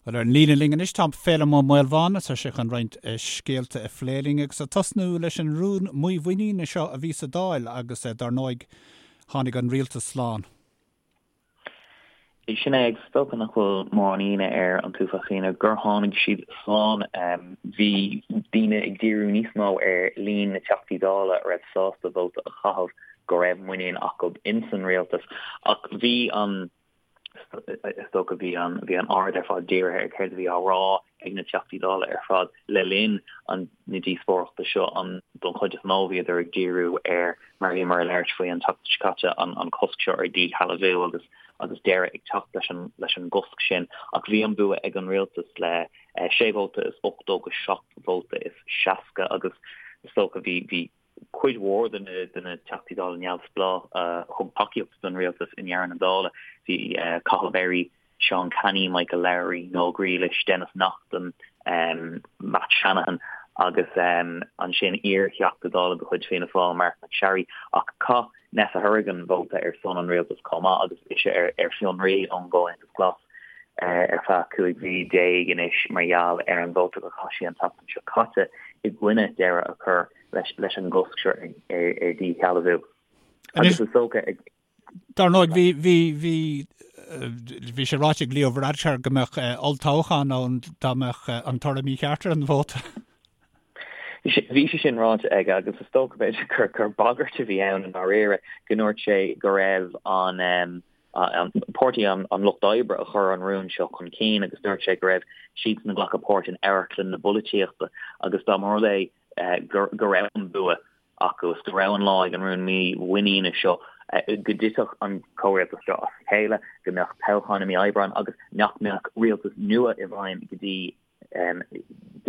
Bhuel, ar an líne linn anois tá Féilim Ó Maolmháin, tá sé chun roinnt scéalta a phlé linn agus ag tosnú leis an rún mímhuiníne seo a bhí sa Dáil agus dar ndóigh tháinig an rialtas slán. Sin é, agus is dócha nach bhfuil mórán ionadh ar an t-uafás daoine gur tháinig siad slán. Bhí daoine ag díriú níos mó ar líon na dTeachtaí Dála a raibh sásta vóta a chaitheamh go raibh muinín acu ins an rialtas ach bhí an Is dócha bhí an bhí an aird ar fad dírithe ar céard a bhí á rá ag na Teachtaí Dála ar fad le linn an na díospóireachta seo. An don chuid is mó bhíodar ag díriú ar mar a bhíomar ag labhairt faoi an tseachtain seo caite an an cosc seo ar dhíshealbhú agus agus deireadh ag teacht leis an leis an gcosc sin. Ach bhí an bua ag an rialtas le 6 vóta is 80 go 7 vóta is 60 agus is dócha bhí bhí cuid mhór de na Teachtaí Dála neamhspleách a thug tacaíocht don rialtas i ndeireadh na dála. Bhí Cathal Berry, Seán Canney, Michael Lowry, Noel Grealish, Denis Naughten, Matt Shanahan agus ansin iar-Theachta Dála de chuid Fianna Fáil, Marc MacSharry. Ach chaith Neasa Hourigan vóta ar son an rialtais chomh maith agus ise ar fionraí ón gComhaontas Glas ar feadh 15 mhí anois mar gheall ar an vóta a chaith sí an tseachtain seo caite i gcoinne deireadh a chur leis an gcosc seo ar dhíshealbhú. Agus is dócha ag. Dar ndóigh, bhí, bhí, bhí, bhí sé ráite ag Leo Varadkar go mbeadh olltoghchán ann dá mbeadh an toradh mícheart ar an vóta. Bhí sé sin ráite aige agus is dócha b'fhéidir gur, gur bagairt a bhí ann i ndáiríre go ndúirt sé go raibh an, an Páirtí an Lucht Oibre a chuir an rún seo chun cinn agus dúirt sé go raibh siadsan ag glacadh páirt in amharclann na polaitíochta agus dá mba rud é go raibh an bua acu is go raibh an lá ag an rún mímhuiníne seo go dtitfeadh an comhrialtas seo as a chéile, go mbeadh toghchán i mí Aibreáin agus nach mbeadh rialtas nua i bhfeidhm go dtí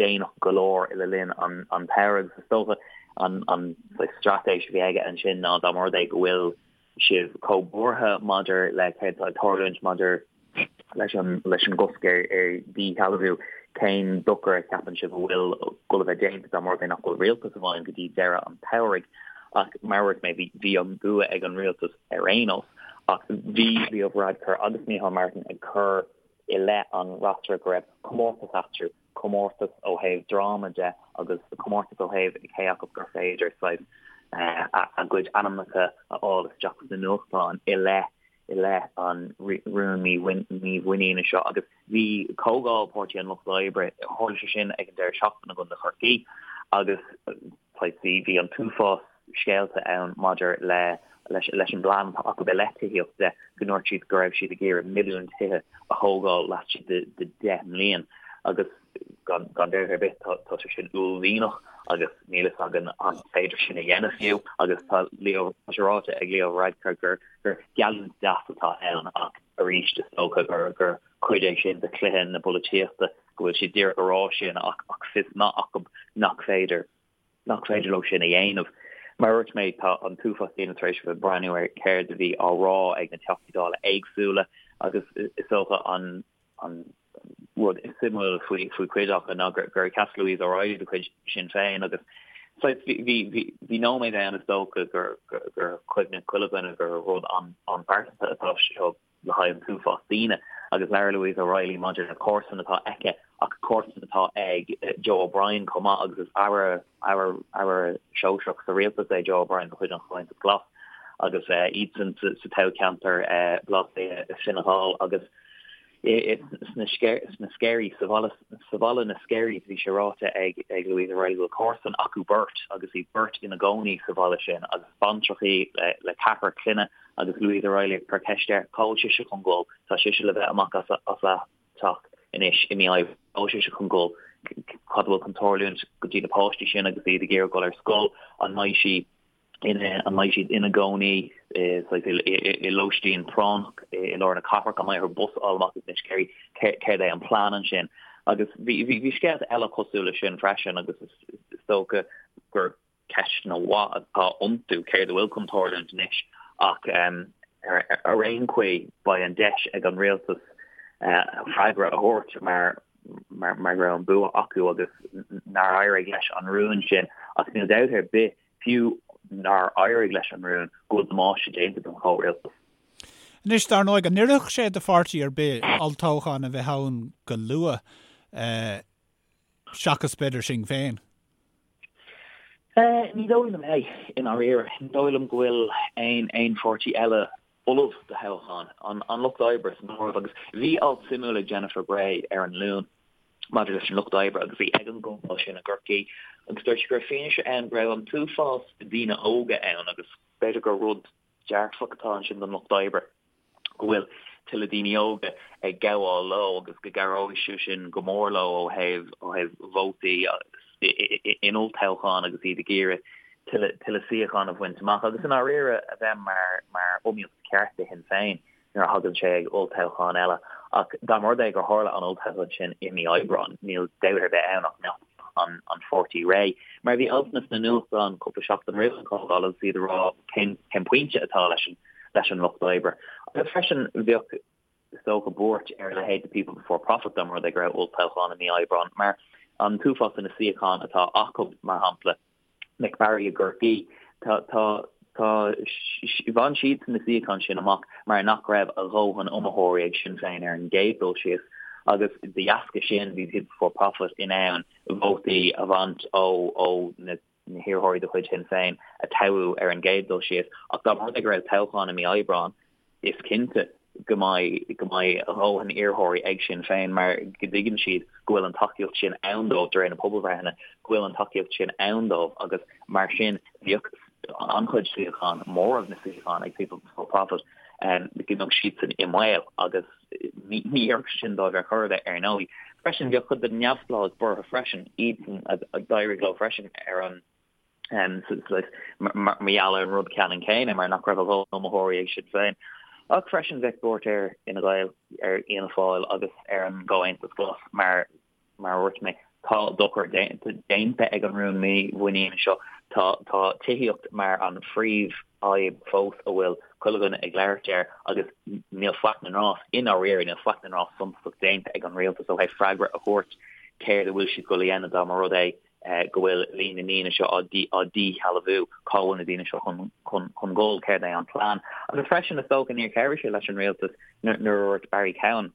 déanach go leor le linn an tsamhraidh. Agus is dócha an straitéis a bhí aige ansin ná dá mba rud é go bhfuil sibh chomh buartha maidir le céard atá ag tarlúint maidir leis an leis an gcosc ar ar dhíshealbhú, cén dochar a cheapann sibh a bhfuil ag dul a bheith déanta dá mba rud é nach bhfuil rialtas i bhfeidhm go dtí deireadh an tsamhraidh? Ach mar a dúirt mé, bhí bhí an bua ag an rialtas ar aon nós. Ach bhí Leo Varadkar agus Micheál Martin ag cur i leith an fhreasúra go raibh comórtas eatarthu, comórtas ó thaobh dráma de agus comórtas ó thaobh cé acu gur féidir saghas a gcuid ainmneacha a fháil isteach sna nuachtáin i leith i leith an rún mímhuiníne seo. Agus bhí comhdháil Páirtí an Lucht Oibre, tharla sé sin ag an deireadh seachtaine i gContae Chorcaí agus saghas bhí bhí an t-uafás scéalta ann maidir le leis leis an bplean atá acu i leith tithíocht de, go ndúirt siad go raibh siad ag iarraidh milliún tithe a thógáil laistigh de de 10 mbliain agus gan gan dabht ar bith tá tá sé sin uaillmhianach agus níl fhios againn an féidir sin a dhéanamh fiú agus tá Leo tá sé ráite ag Leo Varadkar gur gur geallúint deas atá ann ach arís is dócha gur gur cuid é sin de chluiche na polaitíochta go bhfuil siad díreach ag rá sin ach ach fios maith acu nach féidir nach féidir leo sin a dhéanamh. Mar a dúirt mé, tá an t-uafás daoine tar éis a bheith ag breathnú ar céard a bhí á rá ag na Teachtaí Dála éagsúla agus is dócha an an rud is suimiúla faoi faoi chuid acu ná gur gur sheas Louise O'Reilly de chuid Sinn Féin agus saghas bhí bhí bhí bhí nóiméad ann is dócha gur gur gur chuimhnigh chuile dhuine gur rud an an-phearsanta atá seo le haghaidh an t-uafás daoine agus labhair Louise O'Reilly maidir le comharsan atá aici ach comharsan atá ag Joe O'Brien chomh maith agus is aire aire aire sóisearach sa rialtas é Joe O'Brien de chuid an Chomhaontais Glas agus iadsan sa toghcheantar Baile Átha Cliath Fine Gall agus sna sna Sceirí sa bhaile sa bhaile na Sceirí bhí sé ráite ag ag Louise O'Reilly go bhfuil comharsan acu beirt agus iad beirt ina gcónaí sa bhaile sin agus baintreach í le le ceathrar clainne Agus Louise O'Reilly ag cur ceist air cá bhfuil sise chun dul, tá sise le bheith amach as a teach anois i mí Aibreáin, cá bhfuil sise chun dul, cad a bhfuil chun tarlúint go dtí na páistí sin agus iad ag iarraidh dul ar scoil, an mbeidh sí ina, an mbeidh siad ina gcónaí i lóistín práinneach i lár na cathrach, an mbeidh orthu bus a fháil amach as na Sceirí, céard é an plean ansin. Agus bhí, bhí scéalta eile cosúil leis sin freisin agus is dócha gur ceisteanna mhaith atá iontu, céard a bhfuil chun tarlúint anois ach ar aon chaoi beidh an deis ag an rialtas freagra a thabhairt mar mar go raibh an bua acu agus nár éirigh leis an rún sin ach níl dabht ar bith fiú nár éirigh leis an rún go bhfuil damáiste déanta don chomhrialtas. Anois, dar ndóigh, an oirfeadh sé do pháirtí ar bith olltoghchán a bheith ann go luath, seachas b'fhéidir Sinn Féin? Ní dóigh liom é, i ndáiríre. Ní dóigh liom go bhfuil aon aon pháirtí eile ullamh do thoghchán, an Lucht Oibre san áireamh. Agus bhí alt suimiúil ag Jennifer Bray ar an Luan maidir leis an Lucht Oibre agus í ag an gcomhdháil sin i gCorcaigh agus dúirt sí go raibh fianaise ann go raibh an t-uafás daoine óga ann agus b'fhéidir gur rud dearfach atá ansin don Lucht Oibre go bhfuil tuilleadh daoine óga ag gabháil leo agus go gcabhróidh sé sin go mór leo ó thaobh ó thaobh vótaí in olltoghchán agus iad ag iarraidh tuilleadh tuilleadh suíochán a bhaint amach agus i ndáiríre a bheith mar mar iomaíocht cheart do Shinn Féin nuair a thagann sé ag olltoghchán eile. Ach dá mba rud é gur tharla an olltoghchán sin i mí Aibreáin, níl dabht ar bith ann ach go mbeadh an an pháirtí réidh. Mar bhí altanna sna nuachtáin cúpla seachtain roimh an chomhdháil agus iad ag rá cén cén pointe atá leis an leis an lucht oibre. Agus freisin bheadh is dócha buairt ar a leithéid de People Before Profit dá mba rud é go raibh olltoghchán i mí Aibreáin mar an t-uafás de na suíocháin atá acu mar shampla Mick Barry i gCorcaigh, tá, tá, tá, bhain siadsan na suíocháin sin amach mar nach raibh a dhóthain iomaitheoirí ag Sinn Féin ar an gcéad dul síos agus de dheasca sin bhí People Before Profit in ann vótaí a bhaint ó, ó na hiarrthóirí de chuid Shinn Féin a toghadh ar an gcéad dul síos. Ach dá mba rud é go raibh toghchán i mí Aibreáin, is cinnte go mbeidh go mbeidh a dhóthain iarrthóirí ag Sinn Féin mar go dtuigeann siad go bhfuil an tacaíocht sin ann dóibh de réir na pobalbhreitheanna, go bhfuil an tacaíocht sin ann dóibh agus mar sin bheadh an-chuid suíochán, móramh na suíochán ag People Before Profit, go mbeadh siadsan i mbaol agus ní oirfeadh sin dóibh ar chor ar bith ar ndóigh. Freisin bheadh cuid de na neamhspleáigh buartha freisin, iadsan a d'éirigh leo freisin ar an mar gheall ar an rud ceannann céanna, mar nach raibh a dhóthain iomaitheoirí ag Sinn Féin. Ach freisin bheadh buairt ar Fhine Gael, ar Fhianna Fáil agus ar an gComhaontas Glas mar, mar a dúirt mé, tá dochar déanta ag an rún mímhuiníne seo. Tá, tá tithíocht mar an phríomhfhadhb fós a bhfuil chuile dhuine ag labhairt air agus níl faic na ndrás, i ndáiríre, níl faic na ndrás suntasach déanta ag an rialtas ó thaobh freagra a thabhairt céard a bhfuil siad ag dul a dhéanamh dá mba rud é go bhfuil líon na ndaoine seo á díshealbhú, cá bhfuil na daoine seo chun dul, céard é an plean. Agus freisin, is dócha, níor chabhraigh sé leis an rialtas nuair a dúirt Barry Cowen,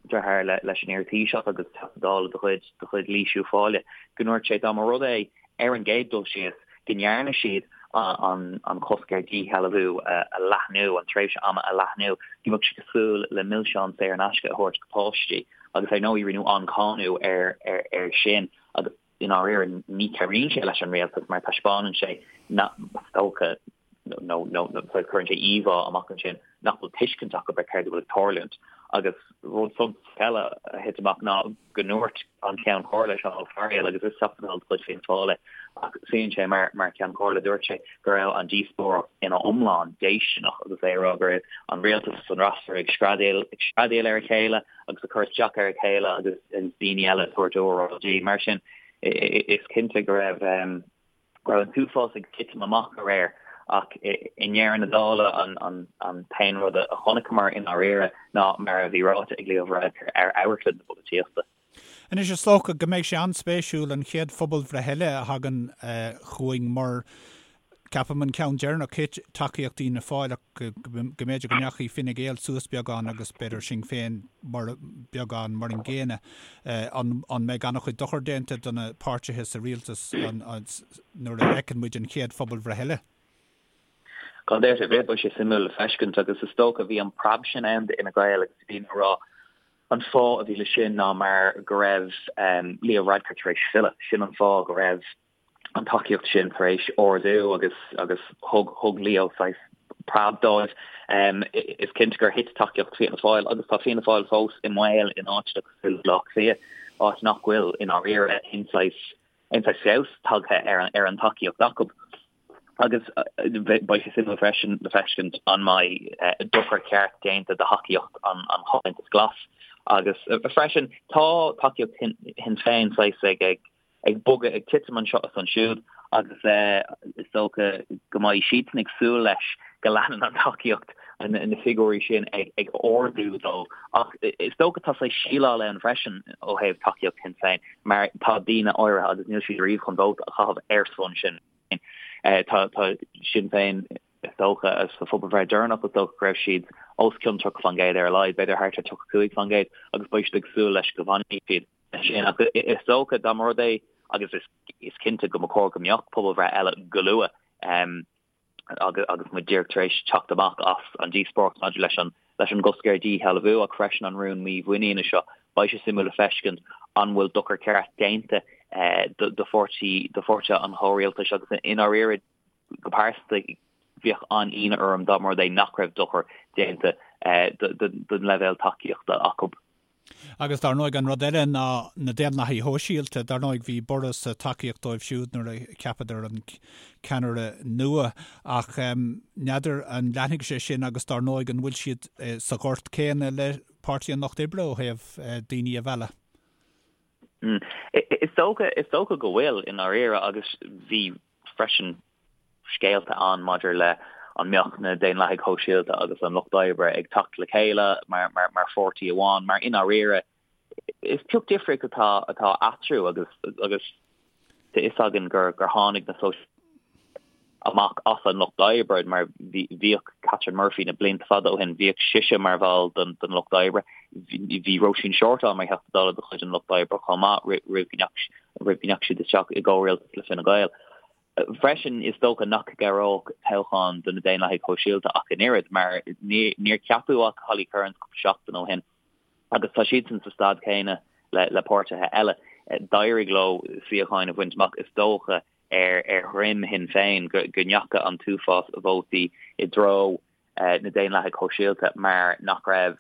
deartháir leis an iar-Thaoiseach agus Teachta Dála de chuid de chuid Laois Uíbh Fhailí, go ndúirt sé dá mba rud é ar an gcéad dul síos go ndearna siad an cosc ar dhíshealbhú a leathnú, an tréimhse ama a leathnú, go mbeadh sé cosúil le milseáin saor in aisce a thabhairt do pháistí. Agus ar ndóigh rinneadh an-cháineadh ar sin. Agus i ndáiríre ní chabhraíonn sé leis an rialtas mar taispeánann sé nach, is dócha, nó nó cuireann sé íomhá amach ansin nach bhfuil tuiscint acu ar céard a bhfuil ag tarlúint. Agus rud suntasach eile a thit amach ná go ndúirt an Ceann Comhairle, Seán Ó Fearghaíl, agus is Teachta Dála de chuid Fianna Fáil é, ach suíonn sé mar mar Cheann Comhairle, dúirt sé go raibh an díospóireacht ina iomlán déistineach agus é ag rá go raibh an rialtas agus an fhreasúra ag screadaíl ag screadaíl ar a chéile agus ag cur isteach ar a chéile agus daoine eile ag tabhairt óráidí. Mar sin, is cinnte go raibh go raibh an t-uafás ag titim amach aréir ach i ndeireadh na dála an t-aon rud a chonaiceamar i ndáiríre ná mar a bhí ráite ag Leo Varadkar ar amharclann na polaitíochta. Anois is dócha go mbeidh sé an-spéisiúil an chéad phobalbhreith eile a thagann chugainn mar ceapaim an ceann deireanach thit tacaíocht Fhianna Fáil ach go mb'fhéidir go ndeachaigh Fine Gael suas beagán agus b'fhéidir Sinn Féin mar beagán mar an gcéanna. An mbeidh an-chuid dochar déanta do na páirtithe sa rialtas nuair a fheiceann muid an chéad phobalbhreith eile? Gan dabht ar bith, beidh sé suimiúil le feiscint agus is dócha bhí an preab sin ann d'Fhine Gael agus bhí daoine ag rá an fáth a bhí le sin ná mar go raibh Leo Varadkar tar éis filleadh. Sin an fáth go raibh an tacaíocht sin tar éis ardú agus agus thug thug Leo saghas preab dóibh. Is cinnte gur thit tacaíocht Fianna Fáil agus tá Fianna Fáil fós i mbaol in áiteanna cosúil le Baile Átha Cliath, áit nach bhfuil i ndáiríre aon saghas aon saghas feabhas tagtha ar an ar an tacaíocht acu. Agus beidh sé suimiúil freisin le feiscint an mbeidh dochar ceart déanta do thacaíocht an Chomhaontais Glas. Agus freisin tá tacaíocht Shinn Féin saghas ag ag ag bogadh, ag titim anseo is ansiúd agus is dócha go mbeidh siadsan ag súil leis go leanann an tacaíocht, na figiúirí sin ag ardú dóibh. Ach is dócha tá saghas síleáil ann freisin ó thaobh tacaíocht Shinn Féin mar tá daoine áirithe agus níl siad riamh chun vóta a chaitheamh ar son Sinn Féin. Tá Sinn Féin. Is dócha, sa phobalbhreith deireanach, is dócha go raibh siad os cionn 30% ar a laghad, b'fhéidir thart ar 35%, agus beidh siad ag súil leis go bhfanfaidh siad sin. Ach is dócha, dá mba rud é, agus is cinnte go mba chóir go mbeadh pobalbhreith eile go luath, agus muid díreach tar éis teacht amach as an díospóireacht maidir leis an leis an gcosc ar dhíshealbhú ach freisin an rún mímhuiníne seo, beidh sé suimiúil le feiscint an bhfuil dochar ceart déanta do pháirtí do pháirtithe an chomhrialtais agus i ndáiríre go pearsanta bheadh an-ionadh orm dá mba rud é nach raibh dochar déanta don leibhéal tacaíochta acu. Agus dar ndóigh an rud eile ná na Daonlathaigh Shóisialta. Dar ndóigh bhí borradh sa tacaíocht dóibh siúd nuair a cheapadar an ceannaire nua ach n'fheadar an leanfaidh sé sin agus dar ndóigh an bhfuil siad sa ghort céanna le Páirtí an Lucht Oibre ó thaobh daoine a mhealladh? Is dócha, is dócha go bhfuil i ndáiríre agus bhí freisin scéalta ann maidir le an mbeadh na Daonlathaigh Shóisialta agus an Lucht Oibre ag teacht le chéile mar mar mar pháirtí amháin, mar i ndáiríre is pioc difríocht atá atá eatarthu agus agus tá fhios againn gur gur tháinig na Sóisialaigh amach as an Lucht Oibre mar bhí bhíodh Catherine Murphy na blianta fada ó shin, bhíodh sise mar bhall den den Lucht Oibre, bhí Róisín Shortall mar Theachta Dála de chuid an Lucht Oibre chomh maith roimh go ndeachaigh roimh go ndeachaigh siad isteach i gcomhrialtas le Fine Gael. Freisin, is dócha nach gcabhródh toghchán do na Daonlathaigh Shóisialta ach an oiread, mar níor ceapadh ach Holly Cairns cúpla seachtain ó shin agus tá siadsan sa staid chéanna le páirtithe eile. D'éirigh leo suíocháin a bhaint amach, is dócha, ar dhroim Shinn Féin, go ndeachaigh an t-uafás vótaí i dtreo na Daonlathaigh Shóisialta mar nach raibh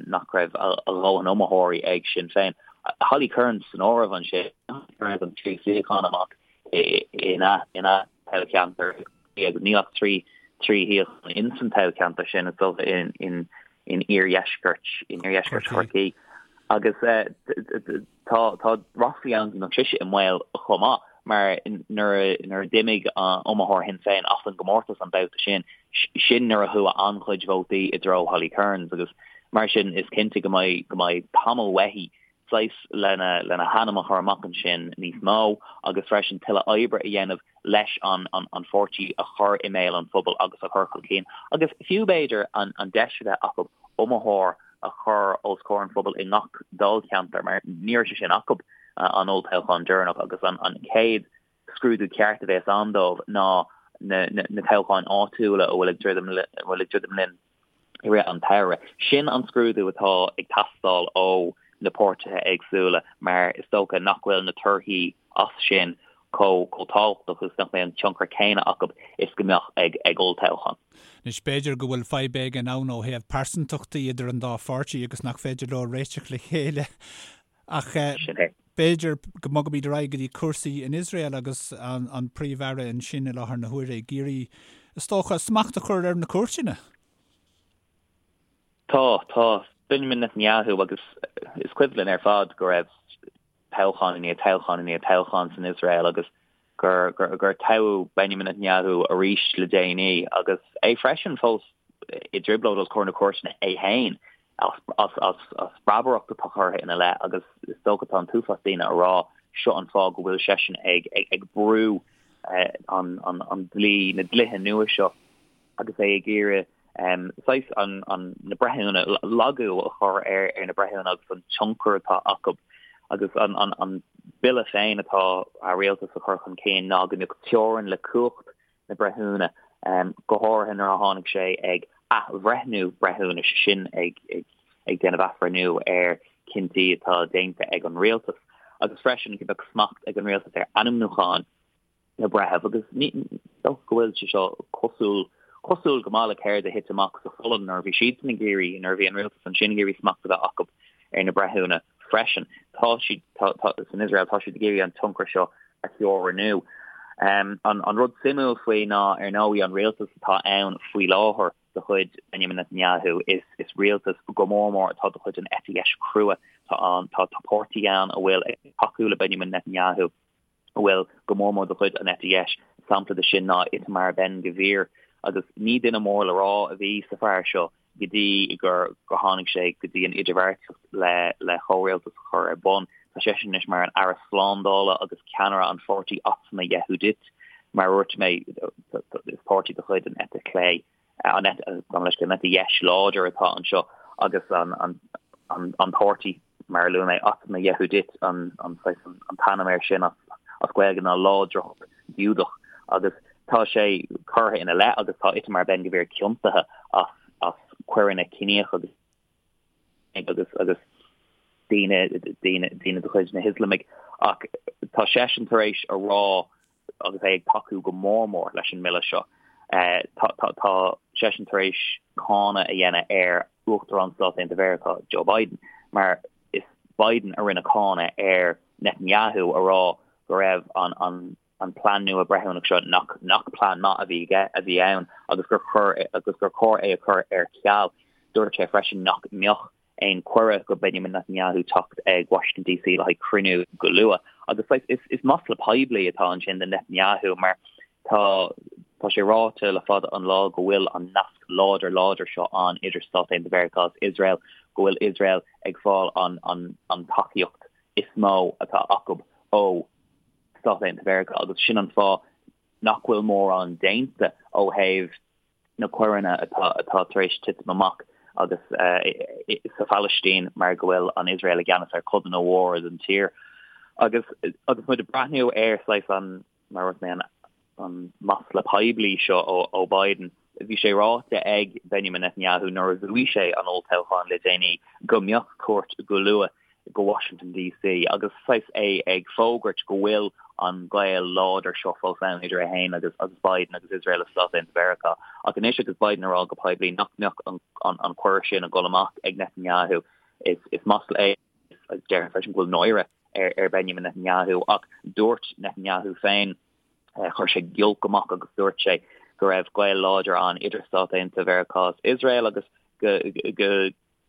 nach raibh a dhóthain iomaitheoirí ag Sinn Féin. Holly Cairns san áireamh ansin, Cairns an trí suíochán amach ina ina toghcheantar agus níl ach trí trí shuíochán in san toghcheantar sin is dócha in in in iardheisceart in iardheisceart Chorcaí agus Tá tá ráflaí ann go mbeadh sise i mbaol chomh maith mar nuair a nuair a d'imigh iomaitheoir Shinn Féin as an gcomórtas an babhta sin, sin nuair a chuaigh an-chuid vótaí i dtreo Holly Cairns agus mar sin is cinnte go mbeidh go mbeidh tamall uaithi saghas lena lena hainm a chur amach ansin níos mó agus freisin tuilleadh oibre a dhéanamh leis an an pháirtí a chur i mbéal an phobail agus a chur chun cinn agus fiú b'fhéidir an an deis a bheith acu iomaitheoir a chur os comhair an phobail i ngach dáilcheantar mar ní raibh sé sin acu an olltoghchán deireanach agus an an chéad scrúdú ceart a bheas ann dóibh ná na na toghcháin áitiúla a bhfuil ag druidim a bhfuil ag druidim linn i rith an tsamhraidh. Sin an scrúdú atá ag teastáil ó na páirtithe éagsúla mar is dócha nach bhfuil na torthaí as sin chomh tábhachtach agus nach mbeidh an tionchar céanna acu is go mbeadh ag ag olltoghchán. Anois, b'fhéidir go bhfuil fadhb éigin ann ó thaobh pearsantachtaí idir an dá pháirtí agus nach féidir leo réiteach le chéile. Ach b'fhéidir go mbogfaimid ar aghaidh go dtí cúrsaí in Iosrael agus an Príomh-Aire ansin i láthair na huaire ag iarraidh, is dócha, smacht a chur ar na cúirteanna. Tá, tá. Benjamin Netanyahu agus is cuimhin linn ar fad go raibh toghchán i ndiaidh toghchán i ndiaidh toghchán san Iosrael agus gur gur toghadh Benjamin Netanyahu arís le déanaí agus é freisin fós i dtrioblóid os comhair na cúirteanna é féin as as breabaireacht atá curtha ina leith agus is dócha tá an t-uafás daoine ag rá seo an fáth go bhfuil seisean ag ag brú an an an dlí na dlíthe nua seo agus é ag iarraidh saghas an an na breithiúna lagú a chur ar ar na breithiúna agus an tionchar atá acu agus an an an bille féin atá a rialtas a chur chun cinn ná go mbeadh teorainn le cumhacht na breithiúna, go háirithe nuair a tháinig sé ag athbhreithniú breithiúnais, sin ag ag ag déanamh athbhreithniú ar chinntí atá déanta ag an rialtas agus freisin go mbeadh smacht ag an rialtas ar ainmniúcháin na breitheamh agus ní dócha go bhfuil sé seo cosúil cosúil go maith le céard a thit amach sa Pholainn nuair a bhí siadsan ag iarraidh nuair a bhí an rialtas ansin ag iarraidh smacht a bheith acu ar na breithiúna freisin. Tá siad tá tá san Iosrael tá siad ag iarraidh an tionchar seo a theorannú. Um, an, an rud suimiúil faoi ná ar ndóigh an rialtas atá ann faoi láthair de chuid Benjamin Netanyahu is is rialtas go mór mór atá de chuid an eite dheis chrua tá an tá tá páirtí ann a bhfuil ag tacú le Benjamin Netanyahu a bhfuil go mór mór de chuid an eite dheis. Sampla de sin ná Itamar Ben Gvir agus ní duine mór le rá a bhí sa fear seo go dtí gur gur tháinig sé go dtí an idirbheartaíocht le le chomhrialtas a chur ar bun. Tá seisean anois mar an Aire Slándála agus ceannaire an pháirtí Otzma Yehudit. Mar a dúirt mé, is páirtí de chuid an eite chlé, an eite, gabh mo leithscéal, an eite dheis láidir atá anseo agus an an páirtí, mar a luaigh mé, Otzma Yehudit an an saghas an t-ainm air sin as as Gaeilge ná Láidreacht Ghiúdach agus tá sé curtha ina leith agus tá Itamar Ben-Gvir ciontaithe as as coireanna ciníocha agus agus agus daoine daoine daoine de chuid na hIoslamaigh ach tá seisean tar éis a rá agus é ag tacú go mór mór leis an mbille seo. Tá tá tá seisean tar éis cáineadh a dhéanamh ar Uachtarán Stáit Aontaithe Mheiriceá Joe Biden mar is Biden a rinne cáineadh ar Netanyahu a rá go raibh an an an plean nua breithiúnach seo nach nach plean maith a bhí aige a bhí ann agus gur chur agus gur chóir é a chur ar ceal. Dúirt sé freisin nach mbeadh aon cuireadh go Benjamin Netanyahu teacht ag Washington DC le haghaidh cruinniú go luath. Agus is is masla poiblí atá ansin do Netanyahu mar tá tá sé ráite le fada an lá go bhfuil an nasc láidir láidir seo ann idir Stáit Aontaithe Mheiriceá agus Iosrael, go bhfuil Iosrael ag fáil an an an tacaíocht is mó atá acu ó Stáit Aontaithe Mheiriceá agus sin an fáth nach bhfuil mórán déanta ó thaobh na coireanna atá atá tar éis titim amach agus sa Phalaistín mar go bhfuil an Iosrael i gceannas ar codanna mhóra den tír. Agus agus muid ag breathnú ar saghas an mar a dúirt mé an an masla poiblí seo ó ó Biden, bhí sé ráite ag Benjamin Netanyahu nuair a bhuaigh sé an olltoghchán le déanaí go mbeadh cuairt go luath go Washington DC agus saghas é ag fógairt go bhfuil an gaol láidir seo fós ann idir é féin agus agus Biden agus Iosrael agus Stáit Aontaithe Mheiriceá. Ach anois agus Biden ag rá go poiblí nach mbeadh an an an cuireadh sin ag dul amach ag Netanyahu is is masla é agus déarfainn freisin go bhfuil náire ar ar Benjamin Netanyahu ach dúirt Netanyahu féin chuir sé giolc amach agus dúirt sé go raibh gaol láidir ann idir Stáit Aontaithe Mheiriceá agus Iosrael agus go go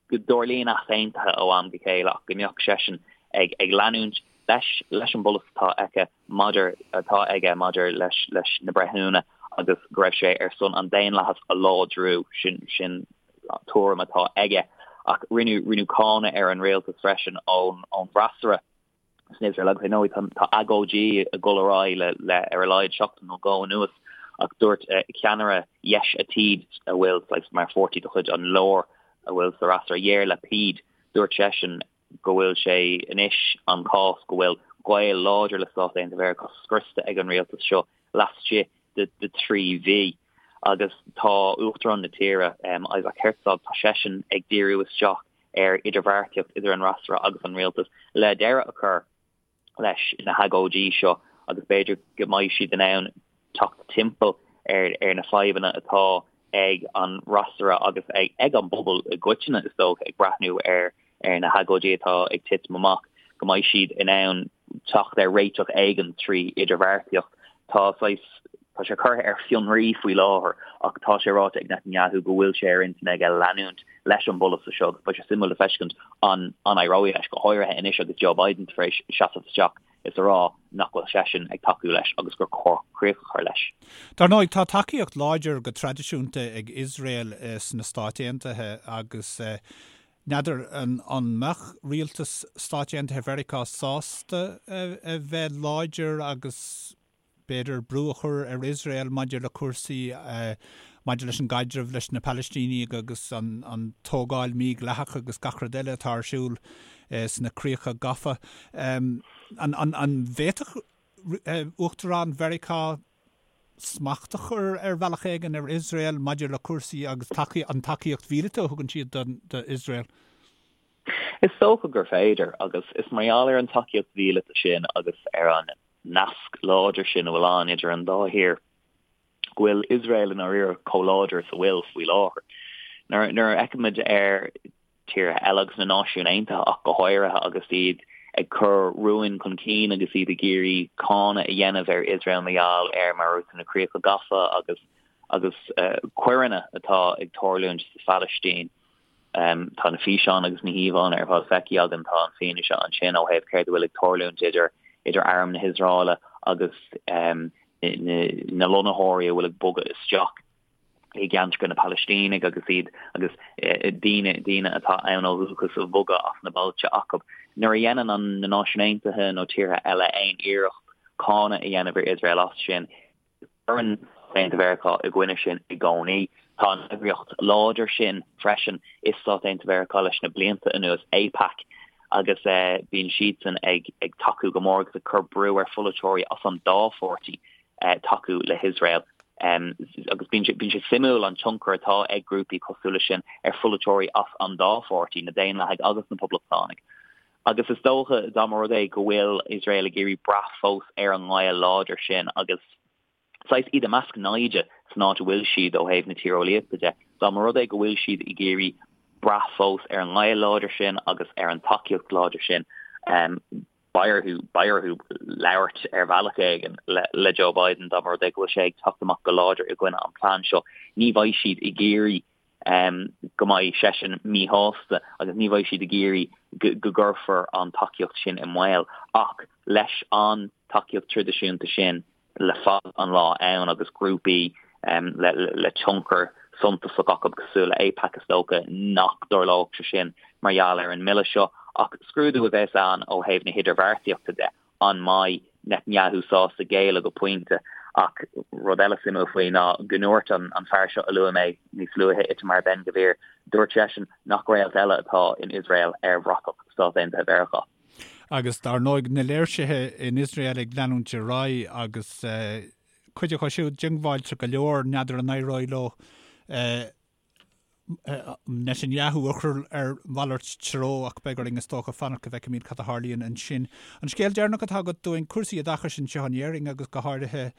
go dtarlaíonn easaontuithe ó am go chéile ach go mbeadh seisean ag ag leanúint leis leis an bpolasaí atá aici maidir atá aige maidir leis leis na breithiúna agus go raibh sé ar son an daonlathas a láidriú, sin sin tuairim atá aige. Ach rinneadh rinneadh cáineadh ar an rialtas freisin ón ón bhfreasúra. san Iosrael agus ar ndóigh tá agóidí ag dul ar aghaidh le le ar a laghad seachtain nó dhó anuas ach dúirt ceannaire Yesh Atid a bhfuil saghas mar pháirtí de chuid an lár a bhfuil sa fhreasúra Yair Lapid dúirt seisean go bhfuil sé anois an cás go bhfuil gaol láidir le Stáit Aontaithe Mheiriceá scriosta ag an rialtas seo laistigh de de thrí mhí agus tá Uachtarán na tíre Isaac Herzog tá seisean ag díriú isteach ar idirbheartaíocht idir an fhreasúra agus an rialtas le deireadh a chur leis na hagóidí seo agus b'fhéidir go mbeidh siad in ann teacht timpeall ar ar na fadhbanna atá ag an fhreasúra agus ag ag an bpobal i gcoitinne is dócha ag breathnú ar ar na hagóidí atá ag titim amach, go mbeidh siad in ann teacht ar réiteach éigin trí idirbheartaíocht. Tá saghas, tá sé curtha ar fionraí faoi láthair ach tá sé ráite ag Netanyahu go bhfuil sé ar intinn aige leanúint leis an bpolasaí seo agus beidh sé suimiúil le feiscint an an éireoidh leis, go háirithe anois agus Joe Biden tar éis seasamh isteach is a rá nach bhfuil seisean ag tacú leis agus gur chóir críoch a chur leis. Dar ndóigh, tá tacaíocht láidir go traidisiúnta ag Iosrael sna Stáit Aontaithe agus N'fheadar an mbeadh rialtas Stáit Aontaithe Mheiriceá sásta a bheith láidir agus b'fhéidir brú a chur ar Iosrael maidir le cúrsaí maidir leis an gcaidreamh leis na Palaistínigh agus an tógáil mhídhleathach agus gach rud eile atá ar siúl sna críocha gafa. An bhféadfadh Uachtarán Mheiriceá smacht a chur ar bhealach éigin ar Iosrael maidir le cúrsaí agus an tacaíocht mhíleata a thugann siad d'Iosrael? Is dócha gur féidir, agus is mar gheall ar an tacaíocht mhíleata sin agus ar an nasc láidir sin a bhfuil ann idir an dá thír go bhfuil Iosrael i ndáiríre chomh láidir is a bhfuil faoi láthair. Nuair a fheicimid ar tíortha eile agus na Náisiúin Aontaithe ach go háirithe agus iad ag cur rúin chun cinn agus iad ag iarraidh cáineadh a dhéanamh ar Iosrael mar gheall ar mar a dúirt tú na críocha gafa agus agus coireanna atá ag tarlúint sa Phalaistín. Tá na físeáin agus na híomhánna ar fad feicthe againn, tá an fianaise ansin ó thaobh céard a bhfuil ag tarlúint idir idir arm na hIosraeile agus na lonnaitheoirí a bhfuil ag bogadh isteach. i gceantracha na Palaistínigh agus iad agus daoine daoine atá ann ó dhúchas a bhogadh as na bailte acu. Nuair a dhéanann an na Náisiúin Aontaithe nó tíortha eile aon iarracht cáineadh a dhéanamh ar Iosrael as sin, Cuireann Stáit Aontaithe Mheiriceá i gcoinne sin i gcónaí. Tá an eagraíocht láidir sin freisin i Stáit Aontaithe Mheiriceá leis na blianta anuas, AIPAC, agus bíonn siadsan ag tacú go mór agus ag cur brú ar pholaiteoirí as an dá pháirtí tacú le hIosrael. Agus bíonn sé suimiúil an tionchar atá ag grúpaí cosúil leis sin ar pholaiteoirí as an dá pháirtí, na Daonlathaigh agus na Poblachtánaigh. Agus is dócha, dá mba rud é go bhfuil Iosrael ag iarraidh brath fós ar an ngaol láidir sin agus saghas iad i measc naimhde san áit a bhfuil siad ó thaobh na tíreolaíochta de, dá mba rud é go bhfuil siad ag iarraidh brath fós ar an ngaol láidir sin agus ar an tacaíocht láidir sin, beidh orthu, beidh orthu labhairt ar bhealach éigin le Joe Biden dá mba rud é go bhfuil sé ag teacht amach go láidir i gcoinne an plean seo. Ní bheidh siad ag iarraidh go mbeidh seisean míshásta agus ní bheidh siad ag iarraidh go gcuirfear an tacaíocht sin i mbaol. Ach leis an tacaíocht traidisiúnta sin le fada an lá ann agus grúpaí le tionchar suntasach acu cosúil le AIPAC is dócha nach dtarlódh sé sin mar gheall ar an mbille seo. Ach scrúdú a bheas ann ó thaobh na hidirbheartaíochta de. An mbeidh Netanyahu sásta géilleadh go pointe? Ach rud eile suimiúil faoi ná go ndúirt an fear seo a luaigh mé níos luaithe, Itamar Ben-Gvir, dúirt seisean nach réalt eile atá in Iosrael ar bhratach Stát Aontaithe Mheiriceá. Agus dar ndóigh na léirsithe in Iosrael ag leanúint ar aghaidh agus cuid acu siúd diongbháilte go leor, n'fheadar an éireoidh leo Netanyahu a chur ar mhalairt treo ach beidh orainn is dócha fanacht go bhfeicfimid cad a tharlaíonn ansin. An scéal deireanach atá agat dúinn, cúrsaí oideachais anseo in Éirinn agus go háirithe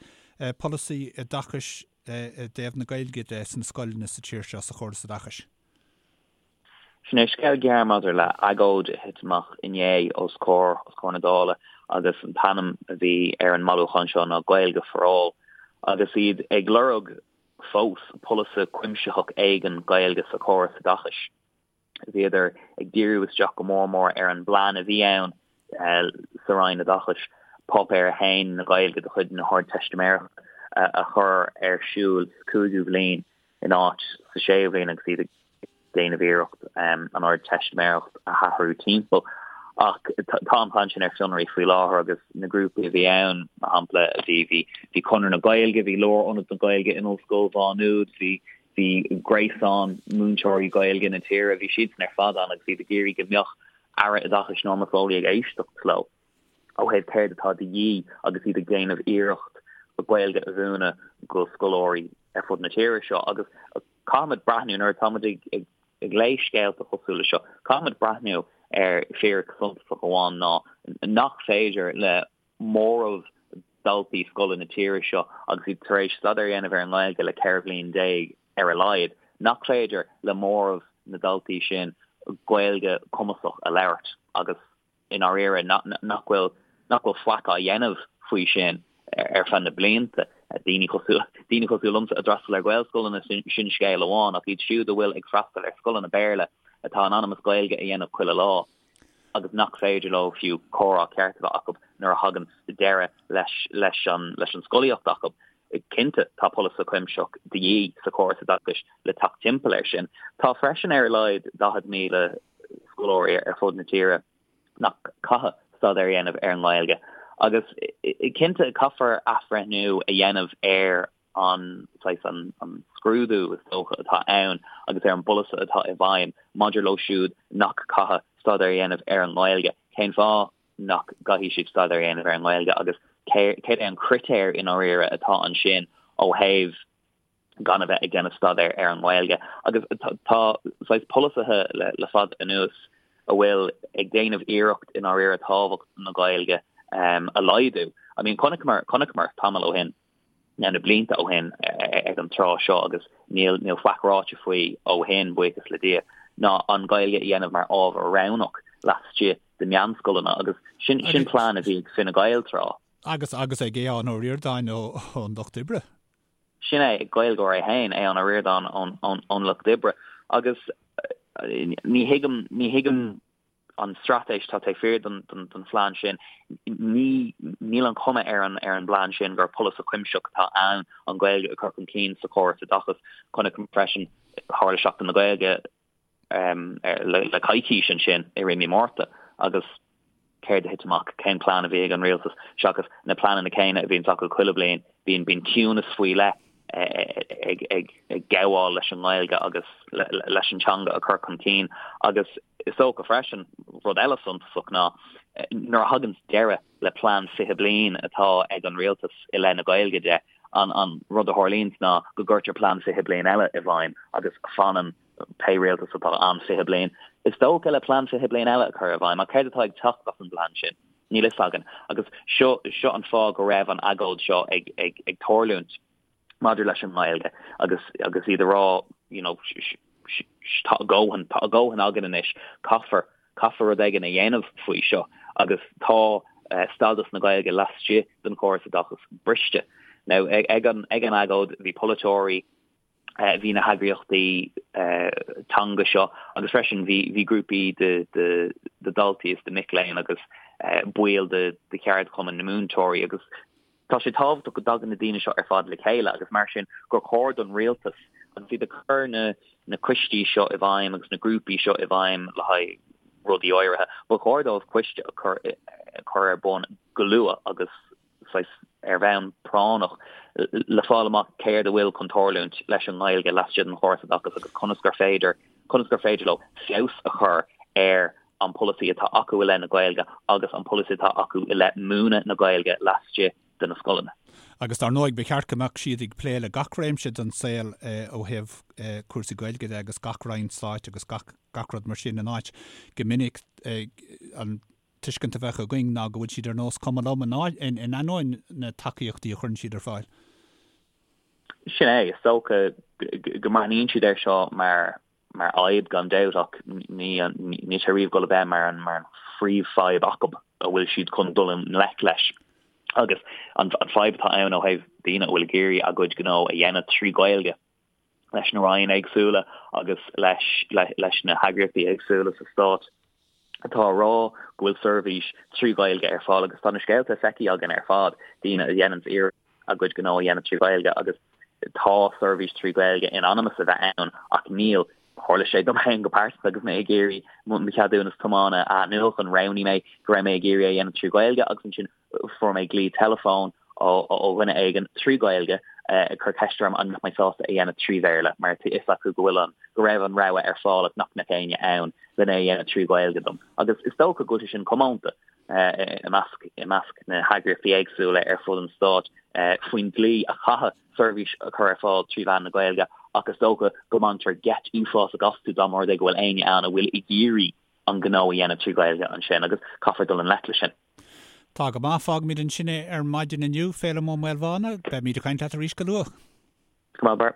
polasaí oideachais i dtaobh na Gaeilge de sna scoileanna sa tír seo, sa chóras oideachais. Sin é scéal gearr maidir le agóid a thit amach inné os comhair os comhair na Dála agus an t-ainm a bhí ar an mbailiúchán seo ná Gaeilge for All agus iad ag lorg fós polasaí cuimsitheach éigin Gaeilge sa chóras oideachais. Bhíodar ag díriú isteach go mór mór ar an bplean a bhí ann sa Roinn Oideachais, Páipéar 1 na Gaeilge de chuid na hArdteistiméireachta a chur ar siúl sa chúigiú bhliain in áit sa séú bhliain agus iad ag déanamh iarracht an Ardteistiméireacht a athrú timpeall. Ach tá an plean sin ar fionraí faoi láthair agus na grúpaí a bhí ann, mar shampla, bhí bhí bhí Conradh na Gaeilge, bhí Lárionad na Gaeilge in Ollscoil Mhá Nuad, bhí bhí gréasán múinteoirí Gaeilge na tíre, bhí siadsan ar fad ann agus iad ag iarraidh go mbeadh Aire Oideachais Norma Foley ag éisteacht leo ó thaobh céard atá de dhíth agus iad ag déanamh iarracht Gaeilge a mhúineadh go scoláirí ar fud na tíre seo agus Caithfimid breathnú, nuair atáimid ag léamh scéalta cosúil le seo, caithfimid breathnú ar fhíric suntasach amháin ná nach féidir le móramh daltaí scoile na tíre seo agus iad tar éis staidéar a dhéanamh ar an nGaeilge le 14 bhliain ar a laghad, nach féidir le móramh na ndaltaí sin Gaeilge cumasach a labhairt agus i ndáiríre nach bhfuil nach bhfuil faic á dhéanamh faoi sin ar feadh na blianta. Daoine cosúil daoine cosúil liomsa a d'fhreastail ar Ghaelscoileanna sin scéal amháin ach iad siúd a bhfuil ag freastal ar scoileanna Béarla atá in ainm is Gaeilge a dhéanamh chuile lá agus nach féidir leo fiú comhrá ceart a bheith acu nuair a thagann deireadh leis leis an leis an scolaíocht acu. Cinnte tá polasaí cuimsitheach de dhíth sa chóras oideachais le teacht timpeall air sin. Tá freisin ar a laghad 40,000 scoláirí ar fud na tíre nach caithfidh staidéar a dhéanamh ar an nGaeilge agus cinnte caithfear athbhreithniú a dhéanamh ar an saghas an scrúdú is dócha atá ann agus ar an bpolasaí atá i bhfeidhm maidir leo siúd nach caithfidh staidéar a dhéanamh ar an nGaeilge. Cén fáth nach gcaithfidh siad staidéar a dhéanamh ar an nGaeilge agus céard é an critéar i ndáiríre atá ansin ó thaobh gan a bheith ag déanamh staidéir ar an nGaeilge. Agus tá saghas polasaithe le fada anuas a bhfuil ag déanamh iarracht i ndáiríre tábhacht na Gaeilge a laghdú. I mean chonaiceamar, chonaiceamar tamall ó shin, nó na blianta ó shin ag an tráth seo agus níl, níl faic ráite faoi ó shin, buíochas le Dia, ná an Ghaeilge a dhéanamh mar ábhar roghnach laistigh de mheánscoileanna agus sin, sin plean a bhí ag Fine Gael tráth. Agus, agus ag Aodhán Ó Ríordáin ón Lucht Oibre. Sin é, Gaeilgeoir é féin, Aodhán Ó Ríordáin ón Lucht Oibre. Agus ní thuigim, ní thuigim an straitéis atá taobh thiar den phlean sin. Ní, níl an chuma ar an, ar an bplean sin gur polasaí cuimsitheach atá ann an Ghaeilge a chur chun cinn sa chóras oideachais. Chonaic freisin, tharla Seachtain na Gaeilge, le coicís ansin i rith mí Márta agus céard a thit amach, cén plean a bhí ag an rialtas seachas na pleananna céanna a bhíonns acu chuile bliain. Bíonn bíonn ciúnas faoi leith ag ag ag gabháil leis an nGaeilge agus leis an teanga a chur chun cinn agus is dócha freisin rud eile suntasach ná nuair a thagann deireadh le plean 20 bliain atá ag an rialtas i leith na Gaeilge de, an an rud a tharlaíonns ná go gcuirtear plean 20 bliain eile i bhfeidhm agus fanann pé rialtas atá ann 20 bliain, is dócha, le plean 20 bliain eile a chur i bhfeidhm. Ach céard atá ag teacht as an bplean sin? Níl fhios againn. Agus seo seo an fáth go raibh an agóid seo ag ag ag tarlúint maidir leis an nGaeilge agus agus iad a rá you know tá a dhóthain tá a dhóthain againn anois caithfear caithfear rud éigin a dhéanamh faoi seo agus tá stádas na Gaeilge laistigh den chóras oideachais briste. Now ag an ag an agóid bhí polaiteoirí bhí na heagraíochtaí teanga seo agus freisin bhí bhí grúpaí de de de daltaí is de mic léinn agus baill de de cheardchumann na múinteoirí agus tá sé tábhachtach go dtagann na daoine seo ar fad le chéile agus mar sin gur chóir don rialtas agus iad ag cur na na coistí seo i bhfeidhm agus na grúpaí seo i bhfeidhm le haghaidh rudaí áirithe, ba chóir dóibh coiste a chur a chur ar bun go luath agus saghas ar bhonn práinneach le fáil amach céard a bhfuil chun tarlúint leis an nGaeilge laistigh den chóras oideachais agus conas gur féidir conas gur féidir leo feabhas a chur ar an polasaí atá acu i leith na Gaeilge agus an polasaí atá acu i leith múineadh na Gaeilge laistigh de na scoileanna. Agus dar ndóigh ba cheart go mbeadh siad ag plé le gach réimse den saol ó thaobh cúrsaí Gaeilge de agus gach roinn stáit agus gach gach rud mar sin in áit go minic an tuiscint a bheadh againn ná go bhfuil siad ar nós cuma liom in ainneoin na tacaíochtaí a chuireann siad ar fáil. Sin é, is dócha go mbreathnaíonn siad air seo mar mar fhadhb gan dabht ach ní níl sé riamh ag dul a bheith mar an mar an phríomhfhadhb acu a bhfuil siad chun dul i ngleic leis. Agus an fadhb atá ann ó thaobh daoine a bhfuil ag iarraidh a gcuid gnó a dhéanamh trí Ghaeilge, leis na ranna éagsúla agus leis leis na heagraíochtaí éagsúla sa stát atá a rá go bhfuil seirbhís trí Ghaeilge ar fáil agus tá na scéalta feicthe againn ar fad, daoine a dhéananns iarracht a gcuid gnó a dhéanamh trí Ghaeilge agus tá seirbhís trí Ghaeilge in ainm is a bheith ann ach níl. Tharla sé dom féin go pearsanta agus mé ag iarraidh mo cheadúnas tiomána a athnuachan, roghnaigh mé go raibh mé ag iarraidh é a dhéanamh trí Ghaeilge agus ansin Fuair mé glao teileafóin ó dhuine éigin trí Ghaeilge ag cur ceist orm an mbeadh mé sásta é a dhéanamh trí Bhéarla mar tá a fhios acu go bhfuil an, go raibh an rogha ar fáil ach nach mbeadh éinne ann lena é a dhéanamh trí Ghaeilge dom. Agus is dócha go bhfuil sé sin comónta i measc, i measc na heagraíochtaí éagsúla ar fud an stáit faoin dlí a chaithfidh seirbhís a chur ar fáil trí mheán na Gaeilge ach is dócha go mbaintear geit uafásach astu dá mba rud é go bhfuil éinne ann a bhfuil ag iarraidh an gnó a dhéanamh trí Ghaeilge ansin agus caithfear dul i ngleic leis sin. Tá go maith, fágfaimid ansin é ar maidin inniu, Féilim Ó Maolmhána. Beimid ag caint leat arís go luath. Go maith, Bar.